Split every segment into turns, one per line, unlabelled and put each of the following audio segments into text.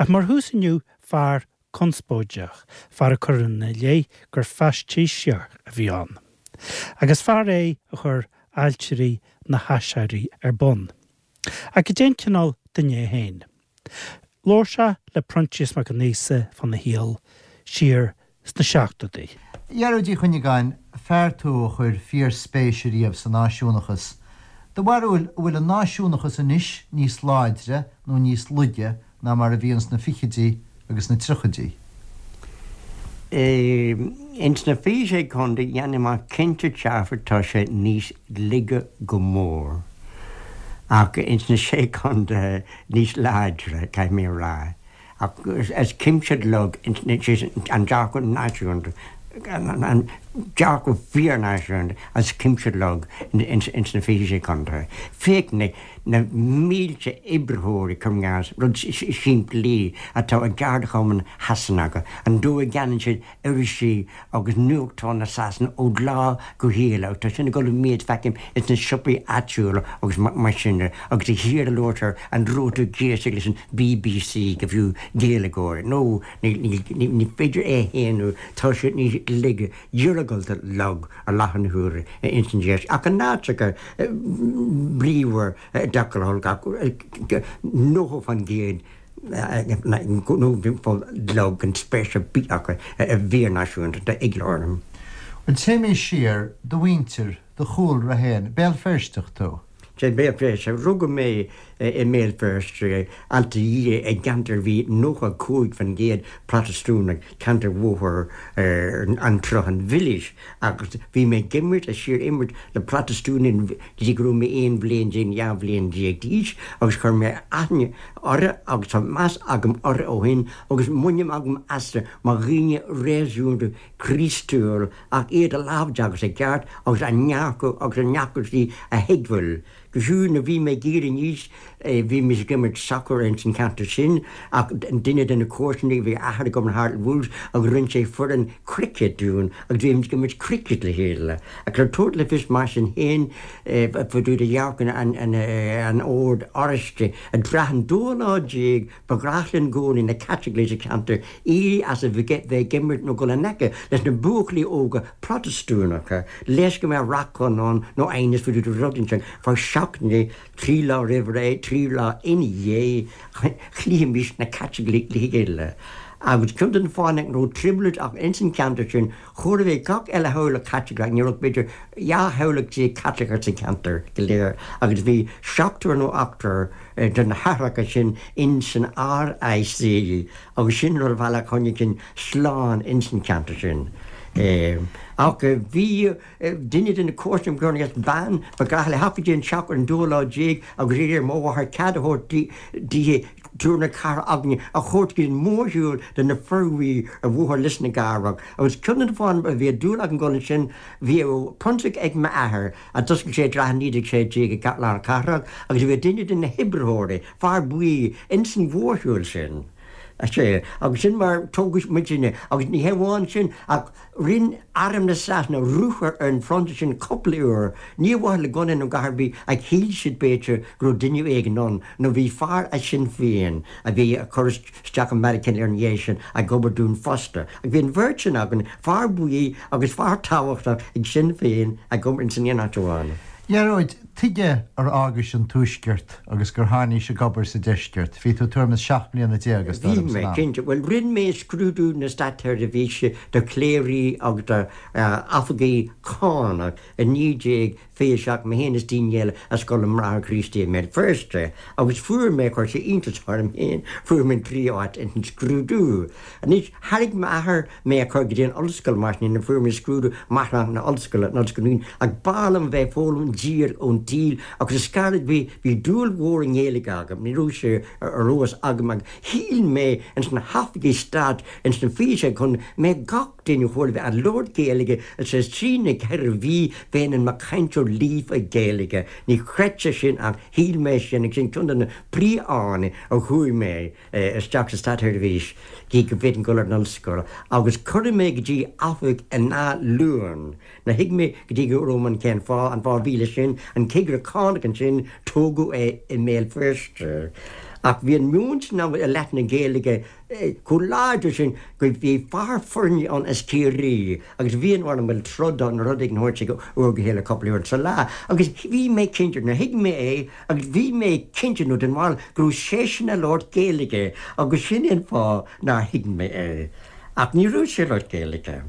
Ach mar thús inniu, fear conspóideach, fear a cuireadh ina leith gur faisnéiseoir a bhí ann. Agus fear é a chuir Ailtirí na hAiséirí ar bun. Ach cad é an cineál duine é féin? Labhair sé le Proinsias Mac an Íosa fána shaol siar sna seachtóidí.
A Ghearóid Uí Chuinneagáin, fear tú a chuir fíor-spéis ariamh sa náisiúnachas. Do bharúil, an bhfuil an náisiúnachas anois níos láidre nó níos laige ná mar a bhí ins na fichidí agus na triochaidí?
Ins na 26 Contae, dhéanfainn amach cinnte dearfa tá sé níos laige go mór. Ach ins na Sé Contaetha níos láidre, caithfidh mé a rá. Ach is cinnte lag an dearcadh náisiúnta, an dearcadh fíor-náisiúnta as cuimse lag ins na 26 Contae. Féach na na mílte oibritheoirí, cuir i gcás, rud simplí, atá i gceardchumainn Shasanacha, an dóigh a gceannaíonn siad irisí agus nuachtáin na Sasana ó lá go chéile agus tá sin ag dul i méid, feicim ins na siopaí áitiúla agus mar sin de, agus de shíor a labhartar an raibh tú ag éisteacht leis an BBC go fiú Gaeilgeoir, nó ní féidir é a shéanadh, tá siad níos laige, iargúlta lag i láthair na huaire ins an deis, ach in áiteacha bríomhar i dtaca le holc ach 90% nó lag gan spéis ar bith acu i bhfíor-náisiúntacht, tá eagla orm.
Bhuel, téimís siar, do mhuintir, do chúlra féin, Béal Feirsteach tú?
Sea, Béal Feirste. Rugadh mé i mBéal Feirste, Ailt a' Dhia, i gceantar a bhí 95% Protastúnach, ceantar Bhóthar an tSrutháin Mhilis, agus bhí mé ag imirt, ag síor-imirt le Protastúnaigh go dtí go raibh mé 11 bhliain, 12 bhliain d'aois, agus chuir mé aithne orthu agus tá meas agam orthu ó shin agus muinín agam astu mar dhaoine réasúnta Críostúil ach iad a láimhdeachas i gceart agus a ndearcadh agus a ndeacrachtaí a thuigbheáil. Go fiú nuair a bhí mé ag éirí aníos bhí mise ag imirt sacair ins an cheantar sin ach duine de na comharsanaí bhí athair agam in Hartlepool agus rinne sé foireann cricket dúinn agus bhí muid ag imirt cricket le chéile. Ach le tabhairt le fios mar sin féin fá dtaobh de dhearcadh an Oird Oráistigh i dtráth an dóú lá déag Ba ghnách linn i gcónaí, na Caitlicigh sa cheantar, éirí as a bheith ag imirt nó dul in aice leis na buachaillí óga Protastúnacha, leis go mbeadh racán ann nó aighneas fá dtaobh de rud inteacht fá seachtaine, 3 lá roimh ré, 3 lá ina dhiaidh, chloífimis na Caitlicigh le chéile. Agus ceann de na fáthanna nach raibh trioblóid ach ins an cheantar sin, chóir a bheith gach uile theaghlach Caitliceach, ní raibh ach b'fhéidir 12 theaghlach Caitliceach sa cheantar go léir agus bhí seachtar nó ochtar de na haithreacha sin ins an RIC agus sin rud a bhealach choinnigh sinn slán ins an cheantar sin. Ach bhí duine de na comharsana agam agus bean, ba ghnách léi theacht go dtí an teach ar an dóú lá déag agus iarraidh ar mo mháthair cead a thabhairt di triúr na ceathrar againne a thabhairt go dtí an mórshiúl de na Fir Bhuí ar Bhóthar Lios na gCabrach agus ceann de na fáthanna a bhí dúil agam dul ansin bhí prionsa ag m'athair a d'oscail sé i dtráth 1916 i lár na cathrach agus bhí duine de na hoibritheoirí, fear buí, ins an mhórshiúl sin. Sea, agus sin mar tógadh muidinne agus ní hé amháin sin ach rinn arm na Sasana ruathar ar an phrionsa sin cúpla uair, ní ar mhaithe le gunna nó a dhath ar bith ach shíl siad b'fhéidir go raibh duine éigin ann nó bhí fear as Sinn Féin a bhí ag cur isteach i Meiriceá ar an dhiaidh sin ag obair dúinn fosta. Ach bhí an bheirt sin againn, fear buí agus fear tábhachtach ag Sinn Féin ag obair ins an aon áit amháin.
A Ghearóid, tuige ar fhágais an Tuaisceart agus gur tháinís ag obair sa Deisceart? Bhí tú tuairim is 17 mbliana is dóigh
liom
san
am. Bhí mé, cinnte. Bhuel, rinn mé scrúdú na Státseirbhíse do chléirí agus do oifigigh cánach i 1927, mé féin is daoine eile i Scoil na mBráithre Críostaí i mBéal Feirste, agus fuair mé, chuir sé iontas orm féin, fuair mé an tríú háit ins an scrúdú. Anois, thairg m'athair mé a chur go dtí an ollscoil mar sin, nuair a fuair mé scrúdú máithreánach na ollscoile, an Ollscoil Dún, ach b'fhearr liom a bheith ag foghlaim díreach ón tsaol agus is gairid, bhí, bhí dúil mhór i nGaeilge agam, ní raibh sé ar eolas agam ach shíl mé ins na hoifigí stáit ins na 26 Contae mbeadh gach duine chóir a bheith ag labhairt Gaeilge is is trí nó 4 mhí bheinn i mo chainteoir líofa Gaeilge. Ní chreidfeá sin ach shíl mé sin agus sin ceann de na príomhfháthanna a chuaigh mé isteach sa státsheirbhís gidh go bhféadfainn dul ar an ollscoil agus cuireadh mé go dtí oifig in Áth Luain. Níor thuig mé go dtí go raibh mé ann cén fáth, an fáth a bhí leis sin, an cigire cánach ansin, tógadh é i mBéal Feirste. Ach bhí an meon sin ann i leith na Gaeilge chomh láidir sin go bhí fear foirne ann as Ciarraí agus bhí an orm bhuel troid nó rud éigin a thabhairt ag uair go chéile cúpla uair sa lá agus bhí mé cinnte nuair thuig mé é agus bhí mé cinnte nó den bharúil go raibh seisean ag labhairt Gaeilge agus sin é an fáth nár thuig mé é. Ach ní raibh sé ag labhairt Gaeilge.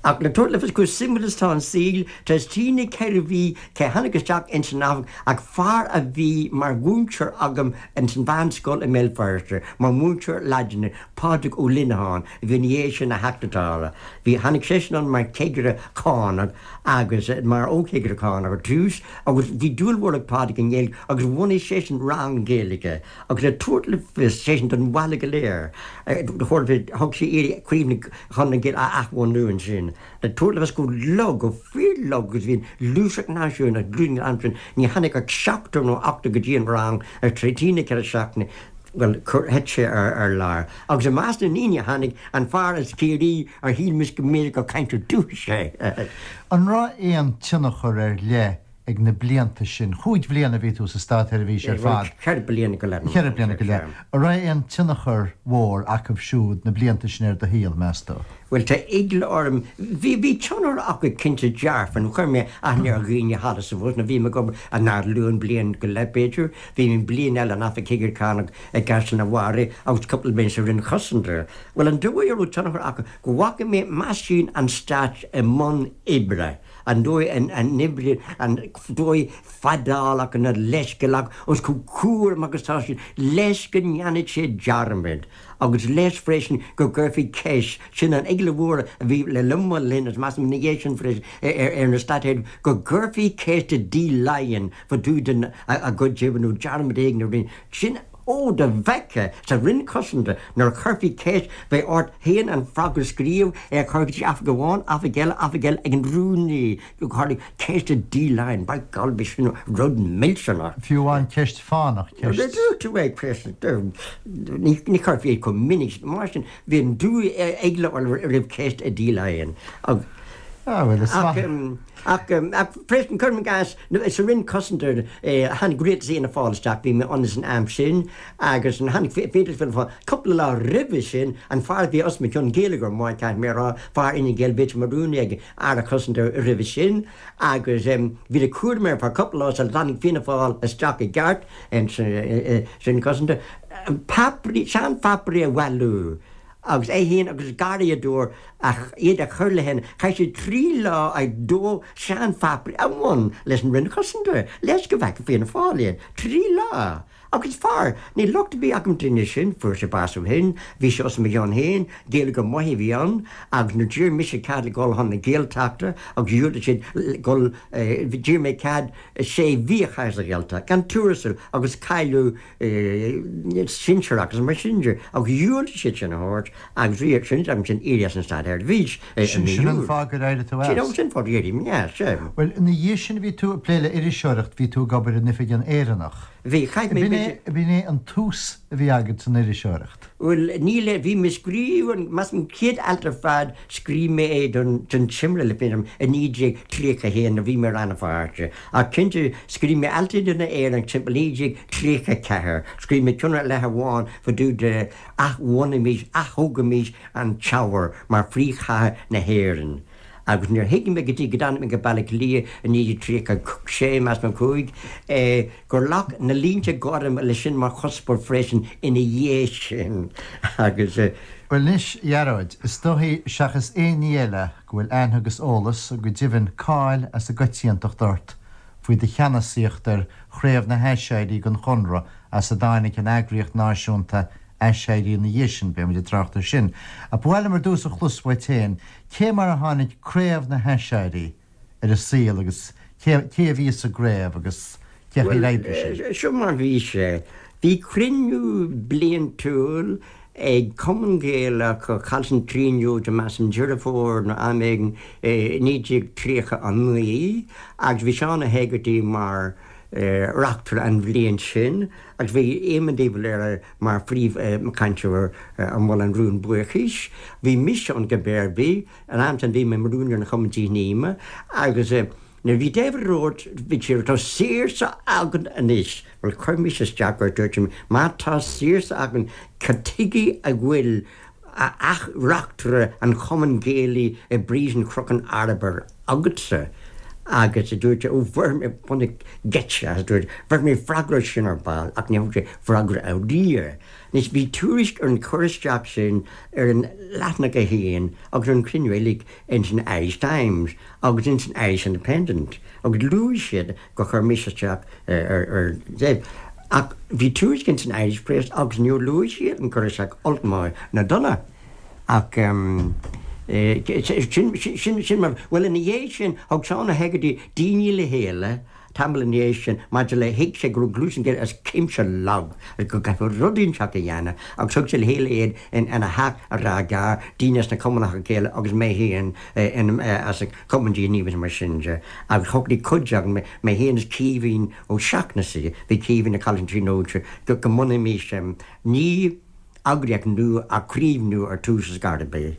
Ach le tabhairt le fios chomh suimiúil is atá an saol, tar éis trí nó 4 mhí cé tháinig isteach ins an oifig ach fear a bhí mar mhúinteoir agam ins an mheánscoil i mBéal Feirste, mar mhúinteoir Laidine, Pádraig Ó Lineacháin, a bhí ina dhiaidh sin ina Theachta Dála. Bhí, tháinig seisean ann mar chigire cánach agus mar fho-chigire cánach ar dtús agus bhí dúil mhór ag Pádraig i nGaeilge agus bhunaigh seisean rang Gaeilge agus le tabhairt le fios, seisean don bhaile go léir, thug sé iarraidh Craobh na Chonradh na Gaeilge a athbhunú ansin, le tabhairt le fios chomh lag, chomh fíor-lag agus a bhí an ghluaiseacht náisiúnach, an am sin, ní tháinig ach seachtar nó ochtar go dtí an rang ar trí nó 4 seachtaine, bhuel, thit sé ar lár. Agus i measc na ndaoine a tháinig, an fear as Ciarraí ar shíl mise go mb'fhéidir gur cainteoir dúchais é.
An raibh aon tionchar ar leith ag na blianta sin, chúig bhliana a bhí tú sa státsheirbhís ar fad.
Cheithre bliana go leith.
Cheithre bliana go leith. An raibh aon tionchar mhór acu siúd, na blianta sin ar do shaol, meas tú?
Bhuel, tá eagla orm. Bhí, bhí tionchar acu cinnte dearfa, nó chuir mé aithne ar dhaoine thall is abhus, nó bhí mé ag obair i nDún bliain go leith, b'fhéidir. Bhí mé bliain eile in Oifig Chigire Cánach i gCaisleán an Bharraigh agus cúpla bliain sa Roinn Chosanta. Bhuel, an dóigh a raibh tionchar acu, go bhfaca mé meaisín an Stáit i mbun oibre. An dóigh a n-oibríonn, an dóigh fadálach nó leithscéalach agus chomh cúramach agus atá siad leis go ndéanfaidh siad dearmad agus leis freisin go gcuirfí ceist, sin an eagla mhór a bhí le linn mo linn agus measaim ina dhiaidh sin freisin ar na stáit go gcuirfí ceist i dTí Laighean fá dtaobh den a gcuid oibre nó dearmad éigin a rinne sin Ó, dá bhfeicfeá sa Roinn Cosanta nuair a chuirfí ceist, bheadh ort féin an freagra a scríobh, é a chur go dtí oifig amháin, oifig eile, oifig eile ag an rúnaí, go tharlaigh ceist i dTí Laighean, by golly, bhí sin rud millteanach.
Fiú amháin ceist fánach, ceist.
Dúirt tú é, ceist, ní chuirfí é chomh minic, mar sin, bhí an dú eagla roimh ceist i dTí Laighean.
Ah, bhuel, is maith.
Ach freisin, cuirim i gcás, sa Roinn Cosanta, tháinig rialtas Fhianna Fáil isteach, bhí mé ann san am sin, agus tháinig rialtas Fianna Fáil, cúpla lá roimhe sin, an fear a bhí os mo chionn, Gaeilgeoir maith, caithfidh mé a rá, fear Fhine Gael, b'fhéidir mar rúnaí ag Aire Cosanta roimhe sin, agus bhí de chúram air ar feadh cúpla lá sula dtáinig Fianna Fáil isteach i gceart sa Roinn Cosanta, páipéirí, seanpháipéirí a bhailiú. Agus é féin agus garraíodóir ach iad a chur le chéile, chaith siad 3 lá ag dó seanpháipéirí a bhain leis an Roinn Chosanta, leis go bhfeicfeadh Fianna Fáil iad. 3 lá! Agus fear, níl locht ar bith agam duine sin, fuair sé bás ó shin, bhí sé os mo chionn féin, Gaeilgeoir maith a bhí ann, agus nuair d'iarr mise cead le dhul chun na Gaeltachta agus dhiúltaigh siad dhul, d'iarr mé cead sé mhí a chaitheamh sa Ghaeltacht, gan tuarastal agus cáiliú sinsearach agus mar sin de, ach dhiúltaigh siad sin a thabhairt agus bhí sin agam sin éirí as an státsheirbhís
i mí Sin an Iúil. fáth gur éirigh tú
as. Sin fáth gur éirigh mé as, sea.
Bhuel, ina dhiaidh sin bhí tú ag plé le iriseoireacht, bhí tú ag obair in Oifig an Éireannach.
Bhí, chaith mé
b'fhéidir. B'in é an tús a bhí agat san iriseoireacht.
Bhuel, níl, bhí mé ag scríobh an, measaim, an chéad alt ar fad, scríobh mé é don, don Timire le fírinne i 1931 nuair a bhí mé i Rann na Feirste. Ach cinnte, scríobh mé alt don Éireannach timpeall 1934. Scríobh mé ceann ar leith amháin fá dtaobh de athbhunaímis, aththógaimis an Teamhair mar phríomhchathair na hÉireann. Agus níor thuig mé go dtí go dtáinig mé go Baile Átha Cliath i 1936, measaim, 5, gur ghlac na línte gorma leis sin mar chuspóir freisin ina dhiaidh sin. Agus.
Bhuel anois, a Ghearóid, is dóichí, seachas aon ní eile, go bhfuil aithne agus eolas, go deimhin cáil as an gcoitiantacht ort faoi do cheannasaíocht ar Chraobh na hAiséirí den Chonradh as a dtáinig an eagraíocht náisiúnta Aiséirí ina dhiaidh sin, beidh muid ag trácht air sin. Ach ba mhaith liom ar dtús a chlos uait féin, cé mar a tháinig Craobh na hAiséirí ar an saol agus cé cé a bhí sa gcraobh agus cé chaoi ar oibrigh
sin? Bhuel, seo mar bhí sé. Bhí cruinniú bliantúil ag Cumann Gaelach Chaillte na Tríonóide, measaim, Deireadh Fómhair nó am éigin i 1939 agus bhí Seán Ó hÉigeartaigh mar reachtaire an bhliain sin agus bhí Éamon de Valera mar phríomhchainteoir a mhol an rún buíochais. Bhí mise ann cibé ar bith. An am sin bhí mé mar rúnaí ar an Chumann Díth Níme agus. Nuair a bhí David Rhodes, bhí sé, tá saoirse againn anois, bhuel chuir mise isteach air, dúirt mé, má tá saoirse againn, cad tuige a bhfuil reachtaire an Chumainn Ghaelaigh i bPríosún Chnoc an Arbhair agatsa? Agus a dúirt sé, ó bhéarfaidh mé bunaidh geit as, a dúirt, bhéarfaidh mé freagra air sin ar ball, ach ní thug sé freagra ariamh. Anois bhí tuairisc ar an chur isteach sin ar an leathanach a haon agus ar an chruinniú uilig ins an Irish Times agus ins an Irish Independent agus luaigh siad gur chuir mise isteach ar Dave. Ach bhí tuairisc ins an Irish Press agus níor luaigh siad an cur isteach olc maith ná dona. Ach sin, sin, sin mar, bhuel ina dhiaidh sin thug Seán Ó hEigeartaigh daoine le chéile Tamall ina dhiaidh sin, maidir le thuig sé go raibh Gluaiseacht na Gaeilge as cuimse lag agus go gcaithfeadh rud inteacht a dhéanamh agus thug sé le chéile iad ina theach i Ráth Gearr, daoine as na Cumannacha Gaelacha agus mé féin as an Chumann Gníomhach mar sin de agus shocraigh cuid againn, mé féin is Caoimhín Ó Seachnasaigh, bhí Caoimhín ag Coláiste na Tríonóide, go mbunóimis ní eagraíocht nua ach craobh nua ar tús ar scor ar bith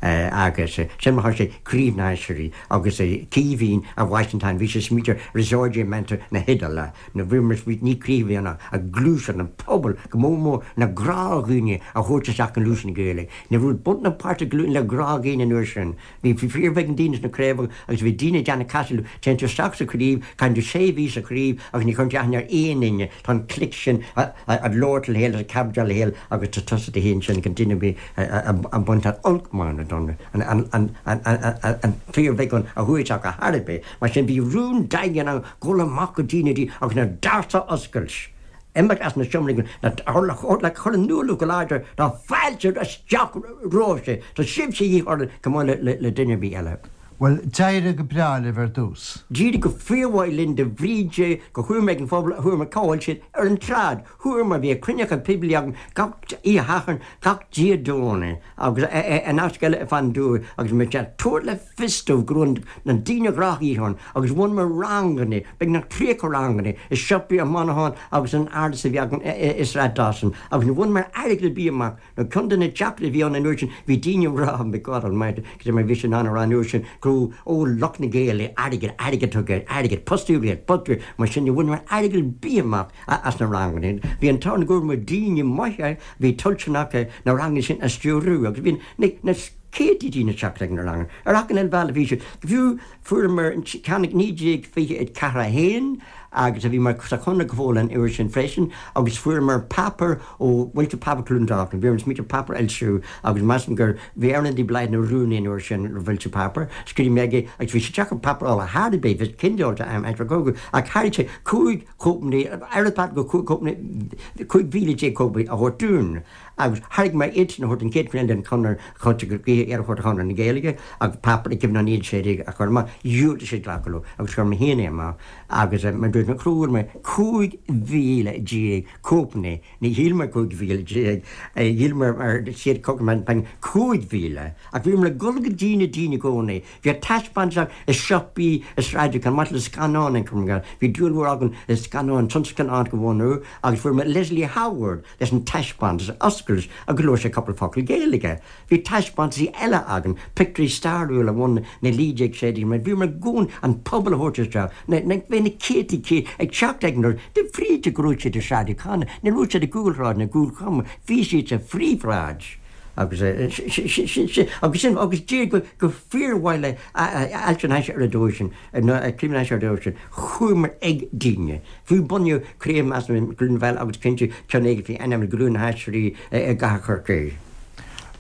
agus sin mar thosaigh Craobh na hAiséirí agus Caoimhín a bhaist an t-ainm, bhí sé ag smaointiú ar Risorgimento na hIodáile nó bhí mar ní craobh a bhí ann ach gluaiseacht an pobal go mór mór na gnáthdhaoine a thabhairt isteach i ngluaiseacht na Gaeilge. Ní raibh Buntáiste le gnáthdhaoine an uair sin. Bhí fíorbheagán daoine sna craobhacha agus bhí daoine ag déanamh casadh leo, téann tú isteach sa chraobh, caitheann tú sé mhí sa chraobh agus ní chuireann tú aithne ar aon duine, tá an clique sin ag labhairt le chéile, ag cabdáil le chéile agus tá tusa do fhéin sin gan duine ar bith ag baint an olc maith nó dona, an fíorbheagán a chuaigh isteach ar chor ar bith. Mar sin bhí rún daingean ann dul amach go dtí na daoine agus na doirse a oscailt. Imeacht as na seomraí le cur in iúl go láidir tá fáilte isteach romhaibhse, tá sibhse de dhíth orainn chomh maith le duine ar bith eile.
Bhuel, d'éirigh go breá libh ar dtús.
D'éirigh go fíormhaith linn de bhrí de gur chuamar ag an phobal, chuamar cá bhfuil siad ar an tsráid, chuamar, bhí cruinnithe poiblí againn gach oíche Shathairn, gach Dé Domhnaigh agus in áiteacha eile ar fud an dúiche agus muid ag tabhairt le fios dóibh go raibh na daoine gnáthdhaoine ann agus bhunaíomar ranganna, beagnach 30 ranganna, i siopaí i Monaghan agus in árasán a bhí againn i Sráid Dawson agus ní bhaineamar airgead ar bith amach nó ceann de na deacrachtaí a bhí ann an uair sin bhí daoine ag rá, my God almighty, cad é mar bhí sé in ann a rá an uair sin go raibh, ó lucht na Gaeilge, airgead, airgead tugtha, airgead, postú riail, postú, mar sin ní bhaineamar airgead ar bith amach as na ranganna. Bhí an t-ádh go bhfuaireamar daoine maithe a bhí toilteanach na ranganna sin a stiúrú agus bhí na céadta daoine ag teacht ag na ranganna. Ar achan uile bhealach bhí siad. Fiú fuaireamar ceann ag 1924 1 agus a bhí mar sa Chonradh go fóill an uair sin freisin agus fuaireamar páipéar ó Mhuintir Páipéar Cluain Dolcáin. Bhí orainn smaointiú páipéar a fhoilsiú agus measaim gur bhí Earnán de Blaghd ina rúnaí an uair sin ar an bhfoilsiú páipéar. Scríobh mé aige agus bhí sé deacair páipéar a fháil ar chor ar bith, bhí cinneáil am aimsir an chogaidh ach thairg sé 5 chóipeanna, oiread páipéar go 5 cóipeanna, 15,000 cóipeanna a thabhairt dúinn. Agus thairg mé iad sin a thabhairt don chéad chruinniú den Chonradh Choite go gaoithe iad a thabhairt do Chonradh na Gaeilge agus páipéar i gcuimhne an 1916 a chur amach. Dhiúltaigh siad glacadh leo agus chuir mé féin é amach agus mar dúirt mé fuair mé 15,000 cóipeanna, ní shíl mé 15,000, shíl mé ar siad 5,000 ach bhíomar ag dul go dtí na daoine i gcónaí. Bhí taispeántais i siopaí i Sráid Chomh maith le scannáin an Chonradh. Bhí dúil mhór againn i scannáin, tionscnamh a bhunú agus fuair mé Leslie Howard leis an taispeántas a oscailt agus labhair sé cúpla focal Gaeilge. Bhí taispeántaisí eile againn, pictiúirí stairiúla ó na 1916 mar bhíomar i gcónaí an pobal a thabhairt isteach, na, na, bhí na céadta céad ag teacht ag an doras, de bhrí de go raibh siad i Sráid O'Connor, ní raibh siad i gcúlshráid na gCúlchoma, bhí siad sa phríomhshráid. Agus sin, agus sin, agus d'éirigh go, go fíormhaith le Ailtirí na hAiséirí ar an dóigh sin, nó Craobh na hAiséirí ar an dóigh sin. Chuamar ag daoine. Fiú bunaíodh craobh measaim i gCluain Mheala agus cinnte ceann éigin faoi ainm Ghlúin na hAiséirí i gcathair Chorcaí.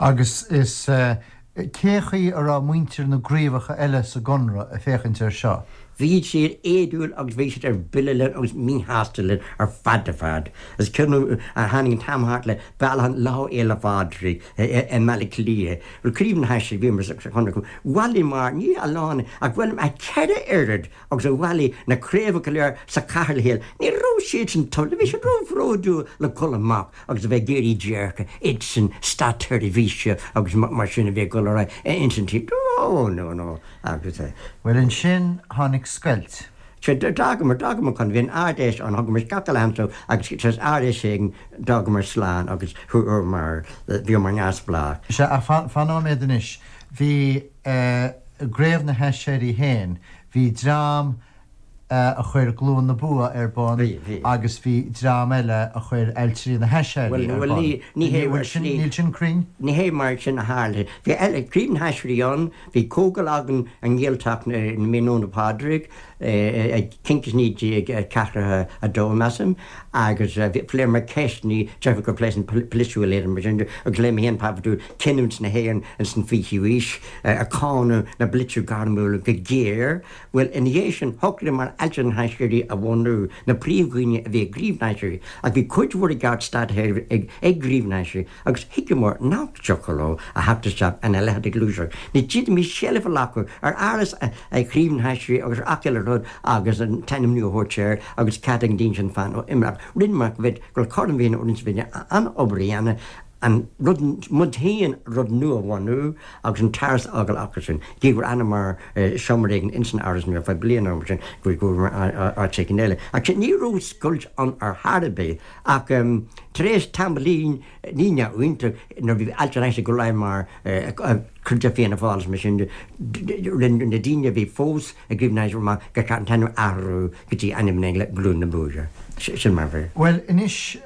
Agus is cé chaoi a raibh muintir na gcraobhacha eile sa gConradh ag féachaint air seo?
Bhí siad éadúil agus bhí siad ar buile linn agus míshásta linn ar fad ar fad. Is cuimhin liom tháinig an t-am thart le bailiúchán Lá Fhéile Phádraig i mBaile Átha Cliath. Bhuel Craobh na hAiséirí bhíomar sa Chonradh. Bhailigh ní a lán ach bhailigh a cheithre oiread agus a bhailigh na craobhacha go léir sa chathair le chéile. Ní raibh siadsan toilteanach, bhí siad ró-bhródúil le dhul amach agus a bheith ag iarraidh déirce, iadsan státseirbhíse agus mar sin a bhí ag dul ar aghaidh ins an tír. No, no, no. Agus.
Bhuel ansin tháinig scoilt.
Sea, d'fhágamar, d'fhágamar chun, bhí an Ard-Fheis ann, thugamar gach uile anso agus tar éis Ard-Fheis éigin d'fhágamar slán agus chuamar, bhíomar neamhspleách.
Sea, ach fan, fan nóiméad anois. Bhí eh, i gCraobh na hAiséirí féin. Bhí dream a chuir Glúin na Bua ar bun agus bhí dream eile a chuir Ailtirí na hAiséirí ar bun. Níl sin cruinn?
Ní hé mar sin a tharla. Bhí Craobh na hAiséirí ann, bhí comhdháil againn i nGaeltacht na Mí i nDún Pádraig cinnte 1942, measaim, agus phléamar ceisteanna deirtear gur pléadh an polaitiúil iad mar sin agus léigh mé féin páipéar dúinn Cinniúint na hÉireann ins an 20ú aois ag cáineadh na bpolaiteoirí gairmiúla go géar. Bhuel, ina dhiaidh sin, shocraíomar Ailtirí na hAiséirí a bhunú, na príomhdhaoine a bhí ag Craobh na hAiséirí, ach bhí cuid mhór i gceart státchórais ag Craobh na hAiséirí agus thuigeamar nach dtiocfadh leo a theacht isteach ina leithéid de ghluaiseacht. Ní d'fhéadfaimis seilbh a ghlacadh ar áras Chraobh na hAiséirí agus ar ach uile rud agus an t-ainm nua a thabhairt air agus cead ag an daoine sin fan ó imeacht. Rinneamar go bhfuil cothrom na Féinne roinnt bhí an-obair a dhéanamh an rud muid féin rud nua a bhunú agus an t-áras a fhágáil acu sin. Gidh gur fhanamar i seomra éigin ins an áras nua ar feadh bliana nó mar sin go bhfuaireamar áit éigin eile. Ach ní raibh scoilt ann ar chor ar bith ach tar éis tamaillín ní neamhaontach nuair a bhí Ailtirí na hAiséirí ag dul mar chuid de Fianna Fáil is mar sin de, rinne na daoine a bhí fós ag Craobh na hAiséirí amach gur cheart an t-ainm a athrú go dtí ainm na Glúin na Bua. Sin mar a bhí.
Bhuel, anois,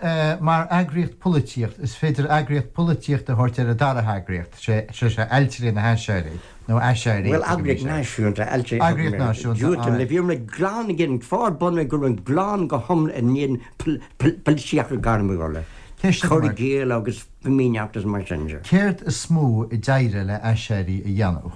mar eagraíocht polaitíocht, is féidir eagraíocht polaitíochta a thabhairt ar an dara heagraíocht, sé sé Ailtirí na hAiséirí, nó Aiséirí.
Bhuel, eagraíocht náisiúnta, Ailtirí.
Eagraíocht náisiúnta,
aye. Bhíomar glan ag an fáth bunaithe go raibh glan go hiomlán in éadan polaitíochta gairmiúla, cur i gcéill agus fimíneacht is mar sin de.
Céard is mó a d'éirigh le Aiséirí a dhéanamh?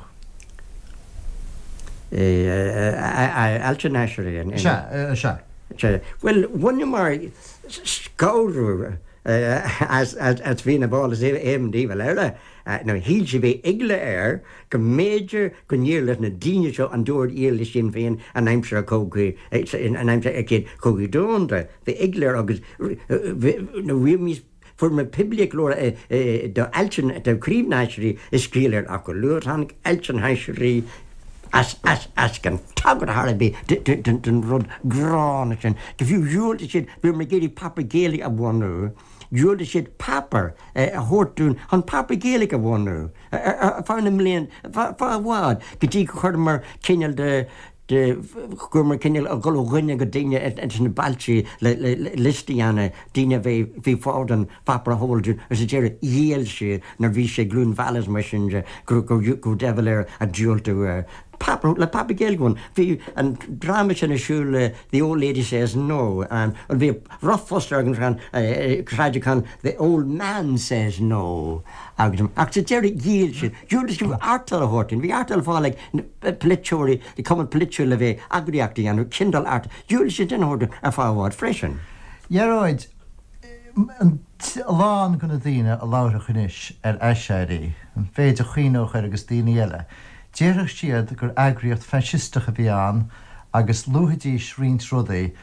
Ailtirí na hAiséirí.
Sea, sea.
Sea. Bhuel, bhaineamar scanradh as Fianna Fáil is aon diabhal eile. Nó shíl sé, bhí eagla air go mb'fhéidir go ndéarfadh leis na daoine seo an dóigh ar éirigh le Sinn Féin in aimsir an chogaidh, in aimsir an Chéad Chogaidh Domhanda. Bhí eagla air agus nó bhí fuair poiblíocht go leor do Ailtirí, do Chraobh na hAiséirí ag scaoileadh ach go luath tháinig Ailtirí na hAiséirí as, as, as gan tagairt ar bith don rud gránna sin. Go fiú dhiúltaigh siad, bhíomar ag iarraidh páipéar Gaeilge a bhunú. Dhiúltaigh siad páipéar a thabhairt dúinn chun páipéar Gaeilge a bhunú ar feadh na mblian, feadh i bhfad, go dtí go chuireamar cineál de, de, go rabhamar cineál ag dul ó dhuine go duine ins na bailte le, le, le liosta a dhéanamh, daoine a bhí, bhí fáil don pháipéar a thabhairt dúinn agus sa deireadh ghéill siad nuair bhí sé Glúin Mheala is mar sin de go, go, go raibh deifir air a diúltú páipéar, le páipéar Gaeilge a bhunú. Bhí an dráma sin ar siúl, The Old Lady Says No, and bhí rough fuss ar an Sráid The Old Man Says No agus ach sa deireadh ghéill siad. Dhiúltaigh siad artail a thabhairt dúinn. Bhí artail ar fáil ag polaiteoirí, cumann polaitiúil le bheith eagraíocht a dhéanamh, cineál artail. Dhiúltaigh siad sin a thabhairt dúinn ar feadh i bhfad freisin.
Ghearóid, a lán de na daoine a labharfadh anois ar Aiséirí, an mhéid a chuimhneodh air agus daoine eile, déarfadh siad gur eagraíocht faisisteach a bhí ann agus luafaidís roinnt rudaí,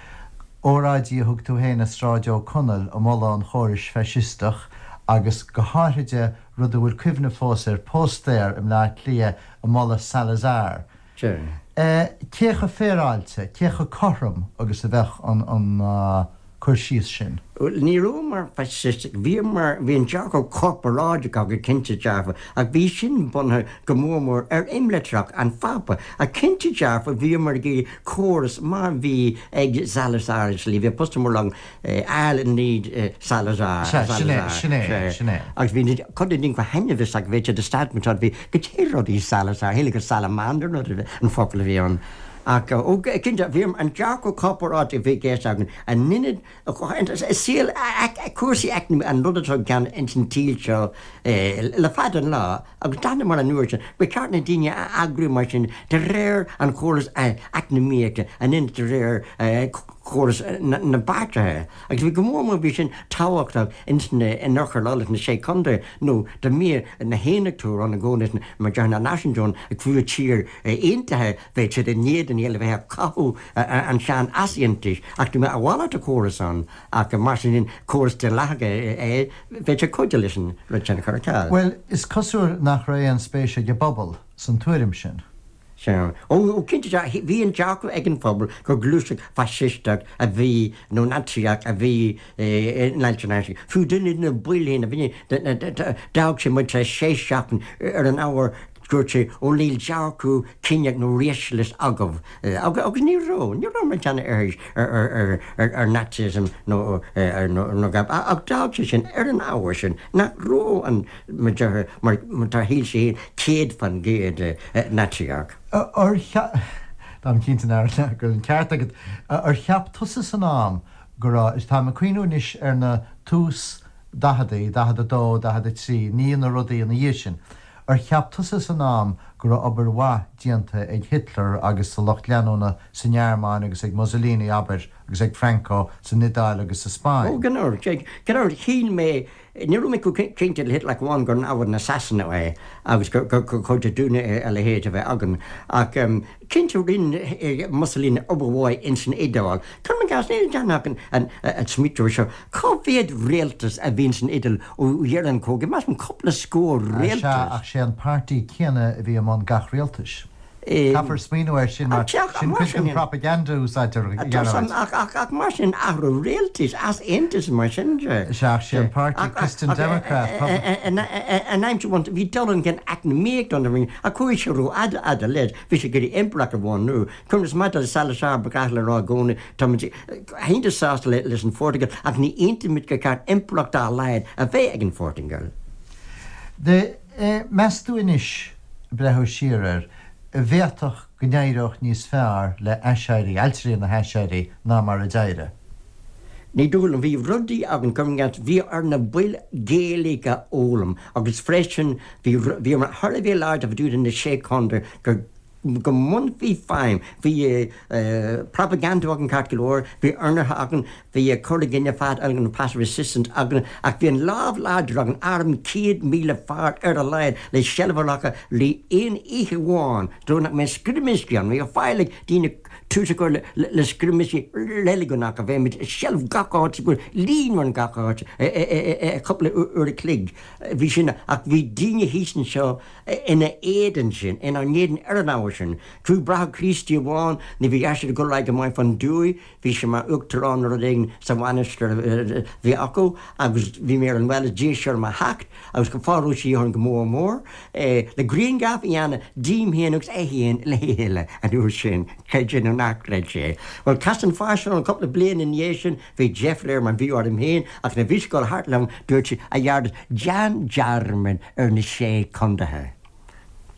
óráidí a thug tú féin i Sráid Ó Conaill ag moladh an chórais faisisteach agus go háithride rud a bhfuil cuimhne fós air, póstaer i mBleá Cliath ag moladh Salazar. Cé chomh féaráilte, cé chomh cothrom agus a bheadh an cur síos sin?
Bhuel, ní rabhamar faisisteach, bhíomar, bhí an dearcadh corparáideach againn cinnte dearfa, ach bhí sin bunaithe go mór mór ar imlitreacha an Phápa. Ach cinnte dearfa, bhíomar ag iarraidh córas mar bhí ag Salazar i slí, bhí postaer mór agam, All need Salazar,
Sea, sin é, sin é, sin é.
Agus bhí cuid de na daoine go hainbhiosach, bhí siad establishment, bhí goidé rud í Salazar, shíl gur salamander an focal a bhí ann. Ach, ó, cinnte, bhí an dearcadh corparáideach a bhí i gceist againn, an ionad, i saol cúrsaí eacnamaíochta, an rud atá i gceann ins an tsaol seo le fada an lá, agus d'aithníomar an uair sin, ba cheart na daoine a eagrú mar sin de réir an chórais eacnamaíochta, in ionad de réir chóras na bpáirtithe. Agus bhí go mór mór, bhí sin tábhachtach ins na, in Oirthear Uladh, sna Sé Chontae, nó dá mbíodh na hAontachtóirí ann i gcónaí, mar déarfainn na Náisiúntóirí ag fuath tír aontaithe, Bheadh siad in éadan a bheith ag cothú an tsean-easaontais, ach dá mbeadh a mhalairt de chóras ann, ach mar sin córas daonlathach é, bheadh sé cuidiú leis an rud sin a chur ar ceal.
Bhuel, is cosúil nach raibh aon spéis ag an bpobal san tuairim sin.
Sea. Ó, cinnte, bhí an dearcadh ag an phobal gur gluaiseacht faisisteach a bhí, nó Naitsíoch a bhí in Ailtirí na hAiséirí. Fiú duine de na baill féin a bhí, d'fhág sé muid tar éis sé seachtain ar an ábhar. Dúirt sé, Ó níl dearcadh ciníoch nó racialist agaibh. Agus ní raibh, ní raibh mar cheann ar ar Nazism nó nó gab. Ach d'fhág sé sin ar an ábhar sin nach raibh an mo dheartháir mar tá shíl sé féin 100% Naitsíoch.
Ar cheap, táim cinnte nach go bhfuil an ceart agat, ar cheap tusa san am go raibh, táim ag cuimhniú anois ar na tús daicheadaí, 42, 43, ní na rudaí ina dhiaidh sin, Ar cheap tusa san am go raibh obair mhaith déanta ag Hitler agus a lucht leanúna sa nGearmáin agus ag Mussolini, abair, agus ag Franco san Iodáil agus sa Spáinn?
Ó, gan amhras. Gan amhras, shíl mé, ní raibh mé chomh cinnte le Hitler ach amháin gur namhaid na Sasana é agus gur chóir dúinne a leithéid a bheith againn. Ach cinnte rinne Mussolini obair mhaith ins an Iodáil. Cuirim i gcás, ní dhéanfadh an smaoitiú seo, cá mhéad rialtas a bhí ins an Iodáil ó dheireadh an chogaidh, measaim cúpla scór
rialtas. Sea, ach sé an páirtí céanna a bhí i mbun gach rialtais. Caithfear smaoineamh air sin mar sin cuid den propaganda a úsáidtear, a
Ghearóid. Ach mar sin athrú rialtais, easaontas mar sin
de. Sea, ach sé an páirtí Christian Democrat.
An aimsir bhuan, bhí dul chun cinn eacnamaíoch don ach chuaigh sé rófhada fhada leis, bhí sé ag iarraidh impireacht a bhunú. Conas maidir le Salazar, ba ghnách le rá i gcónaí, táimid iontach sásta leis an Phortaingéil ach ní aontaímid gur ceart impireacht dá laghad a bheith ag an Phortaingéil.
D, Meas tú anois, ag breathnú siar air, an bhféadfadh go n-éireodh níos fearr le haiséirí, ailtirí na haiséirí ná mar a d'éirigh?
Ní dóigh liom. Bhí rudaí againn, cuirim i gcás, bhí ar na baill Gaeilge a fhoghlaim agus freisin bhí, bhíomar thar a bheith láidir fá dtaobh de na Sé Chontae gur, go mbainfí feidhm. Bhí propaganda againn ceart go leor, bhí ionraithe againn, bhí cur i gcoinne fad againn, an passive resistance againn, ach bhí an lámh láidir againn, arm 100,000 fear ar a laghad le seilbh a ghlacadh le aon oíche amháin, dóigh nach mbeadh scrimisí ann. Bhí faill ag daoine tús a chur le scrimisí reiligiúnacha, bheadh muid i seilbh gach áit, go líonmhar in gach áit i cúpla uair a chloig. Bhí sin, ach bhí daoine thíos anseo, ina éadan sin, inár n-éadan ar an ábhar sin. Fiú Bráthair Críostaí amháin, ní bhí airsean ag dul ar aghaidh go maith fán dtuaith, bhí sé mar uachtarán nó rud éigin sa mhainistir a bhí acu agus bhí mé ar an bhaile, d'iarr sé orm a theacht agus go fóill raibh sé orm go mór mór le grianghraf a dhéanamh díom féin agus é féin le chéile an uair sin, creid é nó ná creid é. Bhuel, chas an fear sin orm cúpla bliain ina dhiaidh sin, bhí deifir air mar bhí orm féin ach nuair a bhí sé ag dul thart liom dúirt sé, a Ghearóid, déan dearmad ar na sé contaetha.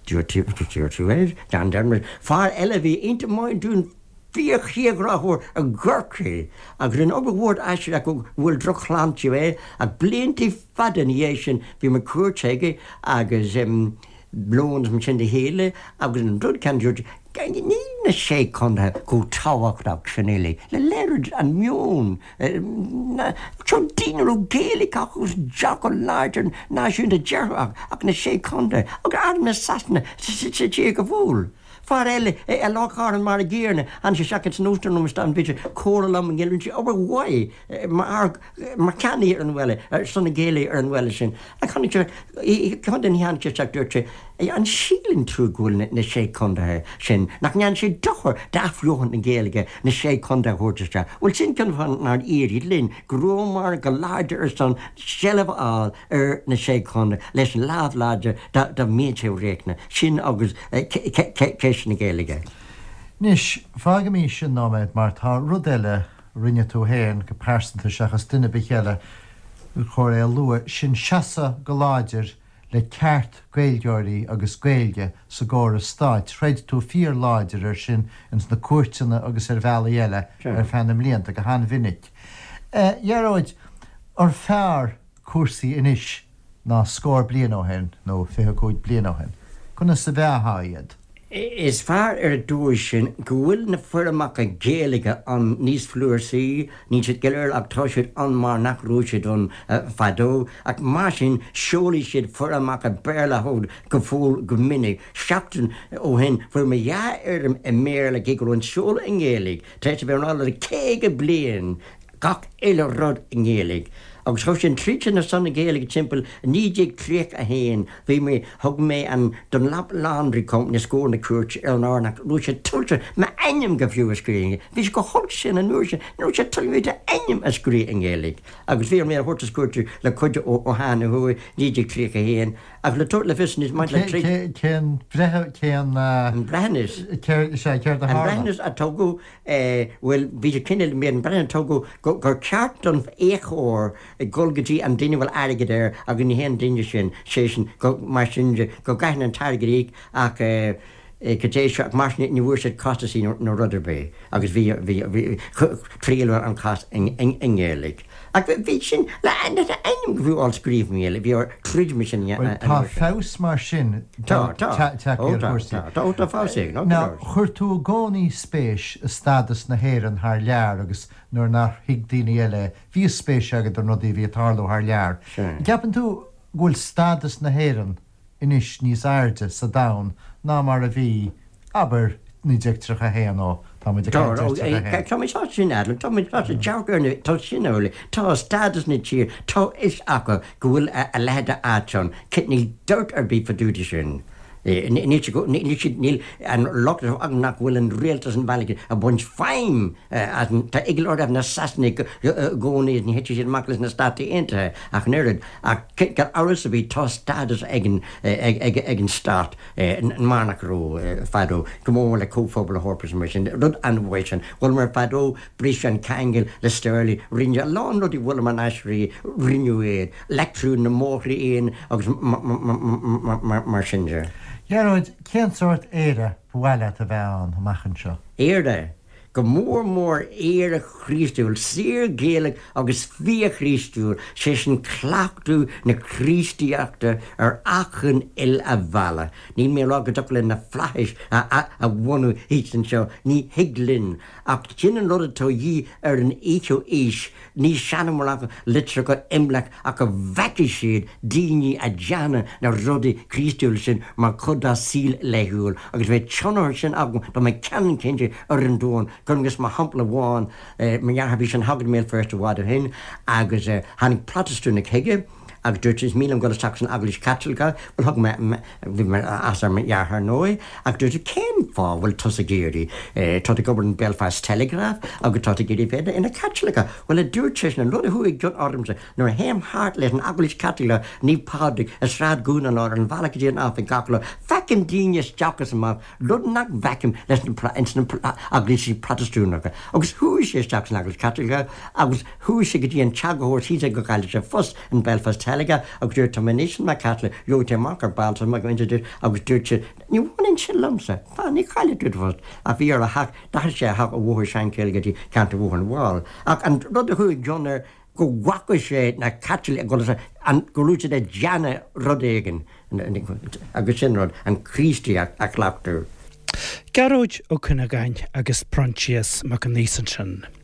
Dúirt tú é, déan dearmad. Fear eile a bhí iontach maith dúinn fíor-thírghráthóir i gCorcaigh agus rinne obair mhór aisteach go bhfuil drochshláinte air ach blianta fada ina dhiaidh sin bhí mé cuairt aige agus lón is mar sin le chéile agus an rud céanna dúirt níl na sé contaetha chomh tábhachtach sin uilig le léiriú an meon Seo daoine a raibh Gaeilge acu agus dearcadh láidir náisiúnta dearfach ach na Sé Chontae agus arm na Sasana sa tír go fóill. Fear eile i Loch Garman mar a gcéanna, tháinig sé isteach ins an óstán liom isteach bhí sé ag comhrá liom i nGaeilge, rinne sé obair mhaith mar mar cheannaí ar an bhaile, ar son na Gaeilge ar an bhaile sin. Ach tháinig sé, contae ní tháinig sé isteach dúirt sé, An síleann tú go bhfuil na Sé Chontaetha sin, nach ndéanann sé dochar d'athbheochan na Gaeilge na Sé Chontae a thabhairt isteach? Bhuel, sin ceann fáth nár éirigh linn, go rabhamar go láidir ar son seilbh a fháil ar na Sé Chontae leis an lámh láidir dá mbeadh sé riachtanach, sin agus ceist na Gaeilge.
Anois, fágaimis sin nóiméad mar tá rud eile a rinne tú féin go pearsanta seachas duine ar bith eile, gur chóir é a lua, sin seasamh go láidir le ceart Gaeilgeoirí agus Gaeilge sa gcóras stáit. Throid tú fíor láidir ar sin ins na cúirteanna agus ar bhealaí eile ar feadh na mblianta, go han-mhinic. A Ghearóid, ar fearr cúrsaí anois ná scór bliain ó shin, nó 25 bliain ó shin? Conas a mheáfá iad?
Is fearr ar an dóigh sin go bhfuil na foirmeacha Gaeilge ann níos flúirsaí, níl siad go léir ach tá siad ann mar nach raibh siad ann fadó, ach mar sin seolfaidh siad foirmeacha Béarla chugat go fóill go minic. Seachtain ó shin fuair mé dhá fhoirm i mBéarla cé go raibh an seoladh i nGaeilge tar éis a bheith ann le 50 bliain, gach uile rud i nGaeilge. Agus chuaigh sin tríd sin ar son na Gaeilge timpeall 1931 bhí mé, thug mé an Dunlop Laundry Company os comhair na cúirte ar an ábhar nach raibh sé tuillte m'ainm go fiú a scríobh i nGaeilge. Bhí sé chomh holc sin an uair sin, ní raibh sé tuillte d'ainm a scríobh i nGaeilge. Agus bhí orm é a thabhairt os cúirte le cuidiú ó Sheán Ó hUaidh, 1931. Ach le tabhairt le fios anois maidir le trí.
Cén breitheamh, cén.
An breithiúnas.
Céard, sea, céard a
tharla? An breithiúnas a tugadh, bhuel, bhí sé cineál, bhí an breithiúnas a tugadh gur ceart don fhiachóir dul go dtí an duine a bhfuil airgead air agus ní hé an duine sin, sé sin, go, mar sin de, go gcaithfidh an t-airgead a íoc ach go dté seo, ach mar sin ní bhfuair siad costasaí nó rud ar bith agus bhí, bhí, bhí, triaileadh an cás i nGaeilge. Ach bhí sin, le ainm go fiú á scríobh i nGaeilge, bhí ar troid mar sin
Bhuel, tá feabhas mar sin
Tá, tá.
tagtha ar chúrsaí.
Tá, tá, tá feabhas éigin,
tá Now, chuir tú i gcónaí spéis i stádas na hÉireann thar lear agus nuair nár thuig daoine eile é, bhí spéis agat i rudaí a bhí ag tarlú thar lear.
Sea.
Gceapann tú go bhfuil stádas na hÉireann anois níos airde sa domhan ná mar a bhí, abair, 1931, ó tá muid ag caint ar 31.
Tá mé sásta sin a admháil, tá mé sásta dearcadh ar na, tá sin amhlaidh, tá stádas na tíre, tá fhios acu go bhfuil a leithéid de áit ann, níl dabht ar bith fá dtaobh de sin. Níl siad, níl siad, níl an locht acu nach bhfuil an rialtas an bhealaigh ag baint feidhm as an, tá eagla orthu na Sasanaigh i gcónaí is ní thitfidh siad amach leis na Státaí Aontaithe ach an oiread. Ach gan amhras ar bith tá stádas ag an, ag an stát mar nach raibh fadó, go mór mór le Comhphobal na hEorpa is mar sin, rud an-mhaith sin. Bhuaileamar fadó, briseadh an ceangal le sterling, rinneadh a lán rudaí, bhuaileamar an aisrí, rinneadh iad. Leictriú na mbóithre éin agus mar sin de.
Gearóid, cén sórt Éire ba mhaith leat a bheith ann amach anseo?
Éire, go mór mór Éire Chríostúil, saor Gaelach agus fíor-Chríostúil, sé sin cleachtadh na Críostaíochta ar achan uile bhealach. Níl mé ag rá go dtiocfadh linn na flaithis a bhunú thíos anseo, ní thig linn, ach sin an rud atá a dhíth ar an fhichiú aois, Ní seanamhrán litreacha imleach ach go bhfeicfidh siad daoine a' déanamh na rudaí Críostúla sin mar chuid dá saol laethúil agus bheadh tionchar sin agam tá mé ceannann cinnte ar an domhan agus mar shampla amháin mo dheartháir bhí sé ina shagart i mBéal Feirste i bhfad ó shin agus tháinig Protastúnach chuige agus dúirt sé is mian liom dul isteach san Eaglais Chaitliceach bhuel thug mé bhí mé as ar mo dheartháir ar ndóigh ach dúirt sé cén fáth a bhfuil tusa ag iarraidh tá tú ag obair in Belfast Telegraph agus tá tú ag iarraidh bheith ina Chaitliceach bhuel a dúirt seisean an rud a chuaigh i gcion ormsa nuair a théim thart leis an Eaglais Chaitliceach Naomh Pádraig i Sráid Dhún na nGall ar an bhealach go dtí an oifig gach lá feicim daoine isteach is amach rud nach bhfeicim leis na ins na eaglaisí Protastúnacha. Agus chuaigh sé isteach san Eaglais Chaitliceach agus chuaigh sé go dtí an t-eagarthóir thíos ag go gcaillfeadh sé post in Belfast Telegraph agus dúirt tá mé anois i mo Chaitliceach, gheobhaidh tú amach ar ball tá mé go dúirt agus dúirt sé ní bhaineann sin liomsa, fan ní chaillfidh tú do phost ach bhí air a theach, d'athraigh sé a theach ó Bhóthar Shankill go dtí ceantar Bhóthar na bhFál. Ach an rud a chuaigh i gcion air go bhfaca sé na Caitlicigh ag dul as an, go raibh siad ag déanamh rud éigin agus sin rud, an Chríostaíocht a chleachtadh.
Gearóid Ó Cuinneagáin agus Proinsias Mac Aonghusa ansin.